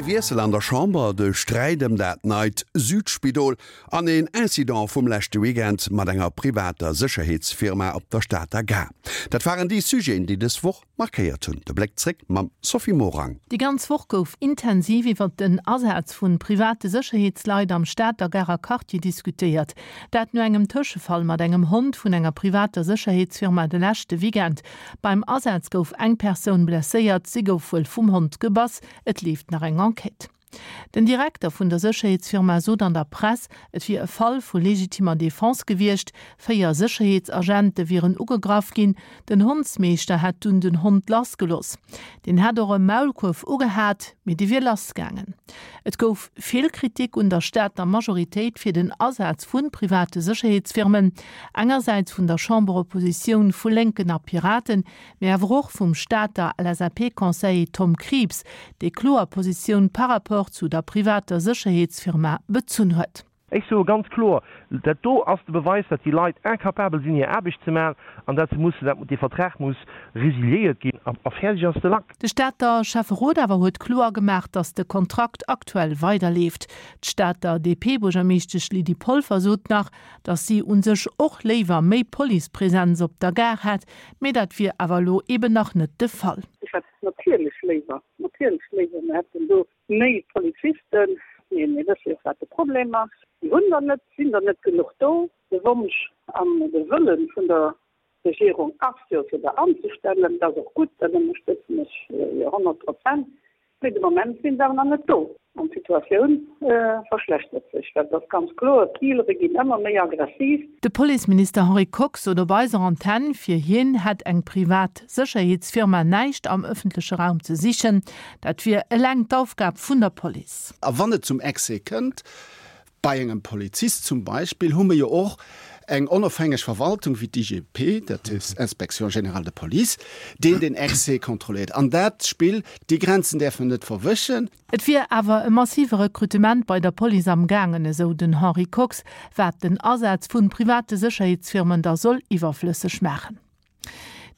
Ee Wiessel an der Chamber, de Sträit ëm dat neit Südspidol an een Incident vum leschte Weekend mat enger privater Sécherheetsfirma op der Stater Gare. Dat waren déi Sujeten, déi dës Woch markéiert hunn. De Bléck zréck mam Sophie Morang. Déi ganz Woch gouf intensiv iwwert den Asaz vu private Sécherheetsleit am Stater Garer Quartier diskutéiert. Dat no engem Tëschefall mat engem Hond vun enger privater Sécherheetsfirma de leschte Weekend. Beim Asaz gouf eng Persoun blesséiert, si gouf wuel vum Hond gebass. Et leeft nach eng Enquête. Den Direkter vun der Sécherheetsfirma sot an der Press, et wier e Fall vu legitimer Defense gewiescht. 4 Sécherheetsagente wieren ugegraff ginn. Den Hondsmeeschter hätt dunn den Hond lassgeloss. Deen hätt och e Maulkuerf ugehat, mee dee wier lassgaangen. Et gouf vill Kritik un der Stater Majoritéit fir den Asaz vu private Sécherheetsfirmen, engersäits vun der Chamberoppositioun vu Lénken a Piraten, mee awer och vum Stater LSAP-Conseiller Tom Krieps, dee kloer Positioun par rapport zu der privater Sécherheetsfirma bezunn huet. Ech soe ganz kloer, dat do ass de Beweis, datt déi Leit incapabel sinn, hir Aarbecht ze maachen an datt se mussen, dat dee Vertrag muss resiliéiert ginn a fäerdeg ass de Lack. De Stater Schäfferot awer huet kloer gemaach, datt de Kontrakt aktuell weiderleeft. D'Stater DP-Buergermeeschtesch Lydie Polfer sot nach, datt si u sech och léiwer méi Policepresenz op der Gare hätt, Mee dat wier awer elo eben nach net de Fall. Ech hätt natierlech léiwer, natierlech léiwer, mir hätten do méi Polizisten. Mee mir wësse jo och, wat de Problem ass. Déi hunn der net, sinn der net genuch do. De Wonsch an de Wëlle vun der Regierung ass jo, fir der anzestellen. Dat ass och gutt, dat ënnerstëtzen ech jo 100%. Mee de Moment sinn se awer nach net do an d'Situatioun verschlechtert sech, well et ass ganz kloer, d'Dealere ginn ëmmer méi aggressiv. De Policeminister Henri Kox sot op eiser Antenn, fir hien hätt eng privat Sécherheetsfirma näischt am ëffentleche Raum ze sichen. Dat wier eleng d'Aufgab vun der Police. A wann et zum Excès kënnt, Bei engem Polizist zum Beispill hu mir jo och eng onofhängeg Verwaltung wéi d'IGP, dat ass Inspection générale de police, deen den Excès kontrolléiert. An dat Spill, déi Grenzen däerfe mer net verwëschen. Et wier awer e massive Rekrutement bei der Police am gaangen, esou den Henri Kox, wat den Asaz vu private Sécherheetsfirmen da soll iwwerflësseg maachen.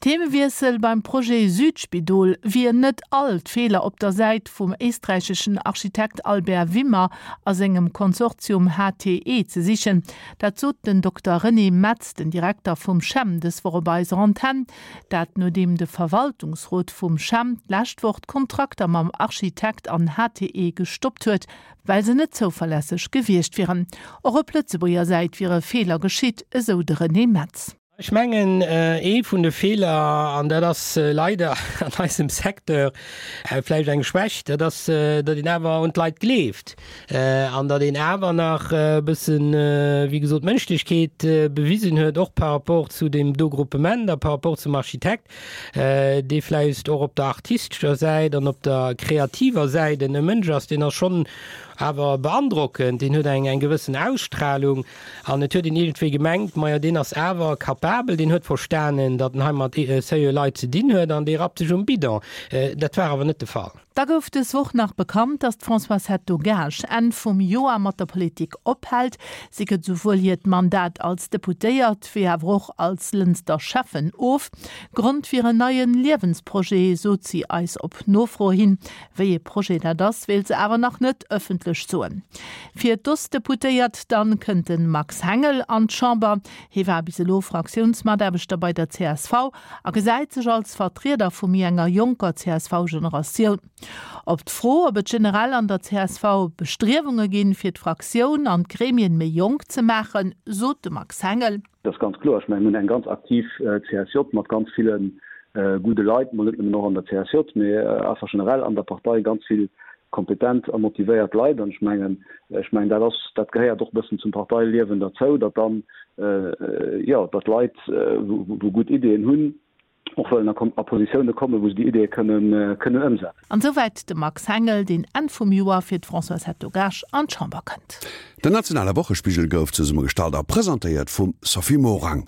Themewiessel, Beim Projet Südspidol wier net all d'Feeler op der Säit vum éisträicheschen Architekt Albert Wimmer a sengem Konsortium HTE ze sichen. Dat sot den Dokter René Metz, den Direkter vum CHEM, dës Woch op eiser Antenn. Dat nodeem de Verwaltungsrot vum CHEM d'lescht Woch d'Kontrakter mam Architekt an HTE gestoppt huet, well se net zouverlässeg gewiescht wieren. Och op Lëtzebuerger Säit wiere Feeler geschitt, esou de René Metz. Ech mengen, ee vun de Feeler, an dat ass leider an eisem Secteur vläicht eng Schwächt, dat ass, datt een awer un d'Leit gleeft an datt een awer nach e bëssen, wéi gesot, Mënschlechkeet bewisen huet, och par rapport zu deem do Gruppement a par rapport zum Architekt, dee vläicht och op der artistescher Säit an op der kreativer Säit en Mënsch ass, deen ass schonn awer beandrockend, deen huet eng gewëssen Ausstrahlung. An et huet een iergendwéi gemengt, majo deen ass awer capabel, deen huet verstanen, datt en hei mat seriö Leit ze dinn huet an dee rappt sech um Bidon. Dat war awer net de Fall. Da gouf dës Woch nach bekannt, datt d'Françoise Hetto-Gaasch Enn vum Joer mat der Politik ophält. Si gëtt esouwuel hiert Mandat als Deputéiert, wéi awer och als Lënster Schäffen of. Grond wier en neie Liewensprojet, sot si eis op Nofro hin. Wéi ee Projet dat ass, wéilt se awer nach net ëffentlech soen. Fir d'Ostdeputéiert dann kënnt de Max Hengel an d'Chamber. Hie war bis elo Fraktiounsmataarbechter bei der csv a gesäit sech als Vertrieder vu méi enger jonker CSV-Generatioun. Op d'Fro, ob et generell an der csv Bestriewunge ginn, fir d'Fraktioun an d'Gremien méi jonk ze maachen, sot de Max Hengel. Dat ass ganz kloer. Ech mengen, mir hunn eng ganz aktiv CSJ mat ganz ville gudde Leit, mol net nëmmen och an der CSJ, mee einfach generell an der Partei ganz vill kompetent a motivéiert Leit. An ech mengen, ech mengen, dat ass, dat gehéiert och e bëssen zum Parteiliewen derzou, datt dann, jo, datt Leit, wou gutt Ideeën hunn, och wëllen a Positioune kommen, wou se déi Ideeë kënnen kënnen ëmsetzen. An esouwäit de Max Hengel, deen Enn vum Joer fir d'Françoise Hetto-Gaasch an d'Chamber kënnt. Den nationale Wochespigel gouf zesummegestallt a presentéiert vum Sophie Morang.